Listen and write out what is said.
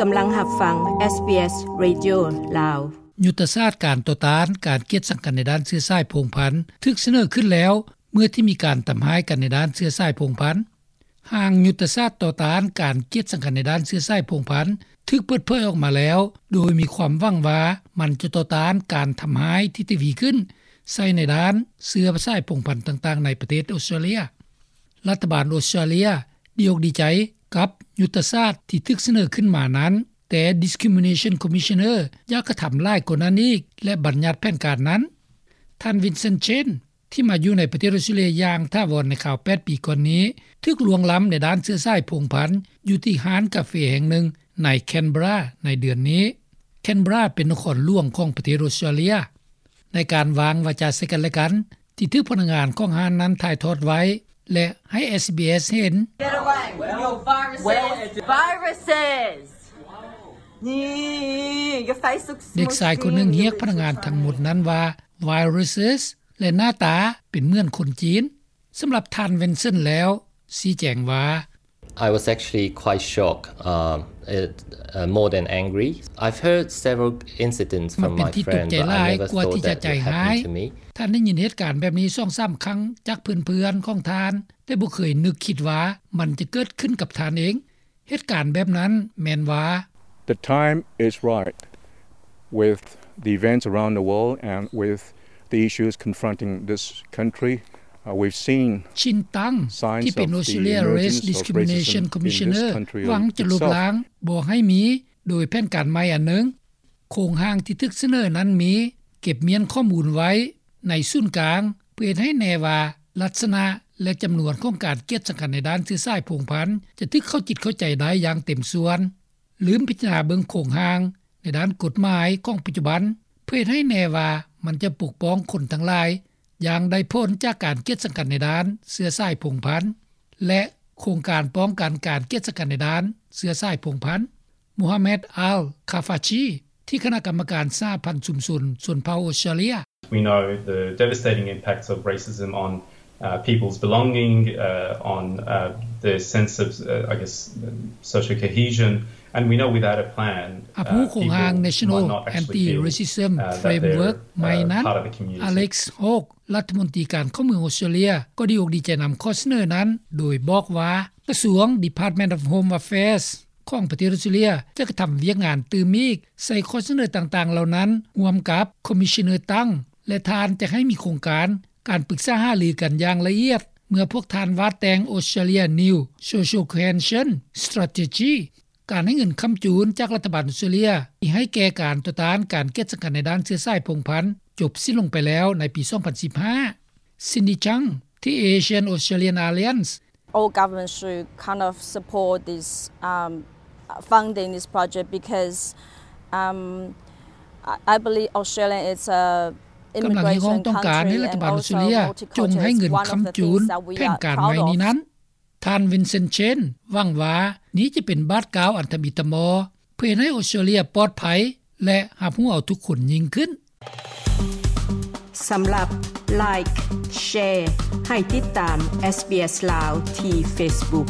ກຳລັງຮັບຟັງ ເອສບີເອສ ເຣດິໂອ ລາວ. ຍຸດທະສາດການຕໍ່ຕ້ານການກຽດສັງກັນໃນດ້ານເຊື້ອສາຍພົງພັນ ຖືກສະເໜີຂຶ້ນແລ້ວ ເມື່ອທີ່ມີການທຳຮ້າຍກັນໃນດ້ານເຊື້ອສາຍພົງພັນ. ຮ່າງຍຸດທະສາດຕໍ່ຕ້ານການກຽດສັງກັນໃນດ້ານເຊື້ອສາຍພົງພັນ ຖືກເປີດເຜີຍອອກມາແລ້ວ ໂດຍມີຄວາມຫວັງວ່າມັນຈະຕໍ່ຕ້ານການທຳຮ້າຍທີ່ທະວີຂຶ້ນໃສ່ໃນດ້ານເຊື້ອສາຍພົງພັນຕ່າງໆໃນປະເທດອົດສະຕຣາເລຍ. ລັດຖະບານອົດສະຕຣາເລຍດີອົກດີໃຈກັບຍຸດທະສາດທີ່ຖືກສະເໜີຂຶ້ນມານັ້ນ, ແຕ່ Discrimination Commissioner ຢາກກະທຳຫຼາຍກວ່ານັ້ນອີກ ແລະ ບັນຍັດແຜນການນັ້ນ. ທ່ານ ວິນເຊັນ ເຊນ ທີ່ມາຢູ່ໃນປະເທດອົດສະຕຣາເລຍຢ່າງຖາວອນໃນຄາວແປດປີກ່ອນນີ້ ຖືກລ່ວງລ້ຳໃນດ້ານເຊື້ອສາຍພົງພັນຢູ່ທີ່ຮ້ານກາເຟແຫ່ງໜຶ່ງໃນ Canberra ໃນເດືອນນີ້. Canberra ເປັນນະຄອນຫຼວງຂອງປະເທດອົດສະຕຣາເລຍ. ໃນການວາງວາຈາໃສ່ກັນແລະກັນ ທີ່ຖືກພະນັກງານຂອງຮ້ານນັ້ນຖ່າຍທອດໄວ້ ແລະ ໃຫ້ ເອສບີເອສ ເຫັນ. Get away with your viruses. Viruses. เด็กชายคนหนึ่งเรียกพนักงานทั้งหมดนั้นว่า viruses และหน้าตาเป็นเหมือนคนจีน. ສຳລັບທ່ານ ວິນເຊັນ ແລ້ວ ຊີ້ແຈງວ່າ I was actually quite shocked, um, it, uh, more than angry. I've heard several incidents from my friend, but I never thought that it would happen to me. ທ່ານໄດ້ຍິນເຫດການແບບນີ້ສອງສາມຄັ້ງຈາກເພື່ອນໆຂອງທ່ານ, ແຕ່ບໍ່ເຄີຍນຶກຄິດວ່າມັນຈະເກີດຂຶ້ນກັບທ່ານເອງ. ເຫດການແບບນັ້ນແມ່ນວ່າ The time is right with the events around the world and with the issues confronting this country. Uh, we've seen ຊິນ ຕັງ ທີ່ເປັນ Australia Race Discrimination Commissioner ຫວັງຈະລົບລ້າງບໍ່ໃຫ້ມີໂດຍແຜນການໃໝ່ອັນໜຶ່ງ. ໂຄງຮ່າງທີ່ຖືກສະເໜີນັ້ນມີເກັບມ້ຽນຂໍ້ມູນໄວ້ໃນສູນກາງ ເພື່ອເຮັດໃຫ້ແນ່ວ່າລັກສະນະ ແລະ ຈຳນວນຂອງການກຽດສັງກັນໃນດ້ານເຊື້ອສາຍພົງພັນ ຈະຖືກເຂົ້າຈິດເຂົ້າໃຈໄດ້ຢ່າງເຕັມສ່ວນ. ລືມພິຈາລະນາເບິ່ງໂຄງຮ່າງໃນດ້ານກົດໝາຍຂອງປັດຈຸບັນ ເພື່ອເຮັດໃຫ້ແນ່ວ່າມັນຈະປົກປ້ອງຄົນທັງຫຼາຍຢ່າງໄດ້ຜົນຈາກການກຽດສັງກັນໃນດ້ານເຊື້ອສາຍພົງພັນ ແລະ ໂຄງການປ້ອງກັນການກຽດສັງກັນໃນດ້ານເຊື້ອສາຍພົງພັນ. ໂມຮາແມັດ ອັລ ຄາຟາຊີ ທີ່ຄະນະກຳມະການສະຫະພັນຊຸມຊົນຊົນເຜົ່າອົດສະຕຣາເລຍ. We know the devastating impacts of racism on, uh, people's belonging, uh, on, uh, their sense of, uh, I guess, social cohesion, and we know without a plan, ຮັບຮູ້ໂຄງຮ່າງ National Anti-Racism Framework ໃໝ່ນັ້ນ ອາເລັກ ໂຮກ ລັດຖະມົນຕີການຂອງເມືອງອົດສະຕຣາເລຍ ກໍດີອົກດີໃຈນຳຂໍ້ສະເໜີນັ້ນ ໂດຍບອກວ່າ ກະຊວງ Department of Home Affairs ຂອງປະເທດອົດສະຕຣາເລຍ ຈະກະທຳວຽກງານຕື່ມອີກໃສ່ຂໍ້ສະເໜີຕ່າງໆເຫຼົ່ານັ້ນ ຮ່ວມກັບ Commissioner ຕັງ ແລະ ທ່ານຈະໃຫ້ມີໂຄງການການປຶກສາຫາລືກັນຢ່າງລະອຽດ ເມື່ອພວກທ່ານວາດແຕ່ງ Australia New Social Cohesion Strategy. ການໃຫ້ເງິນຄ້ຳຈູນຈາກລັດຖະບານອົດສະຕຣາເລຍ ທີ່ໃຫ້ແກ່ການຕໍ່ຕ້ານການກຽດສັງກັນໃນດ້ານເຊື້ອສາຍພົງພັນ ຈົບສິ້ນລົງໄປແລ້ວໃນປີສອງພັນສິບຫ້າ. ຊິນດີ ຊັງ ທີ່ Asian Australian Alliance. All governments should kind of support this, um, funding this project because, um, I, I believe Australia is a ກຳລັງຮຽກຮ້ອງຕ້ອງການໃຫ້ລັດຖະບານອົດສະຕຣາເລຍຈົ່ງໃຫ້ເງິນຄ້ຳຈູນແຜນການໃໝ່ນີ້ນັ້ນ. ທ່ານ ວິນເຊັນ ເຊນ ຫວັງວ່ານີ້ຈະເປັນບາດກ້າວອັນທຳອິດທຳມໍ ເພື່ອເຮັດໃຫ້ອົດສະຕຣາເລຍປອດໄພ ແລະ ຮັບຮູ້ເອົາທຸກຄົນຍິ່ງຂຶ້ນ. ສຳລັບ Like, Share ໃຫ້ຕິດຕາມ SBS Lao ທີ່ Facebook.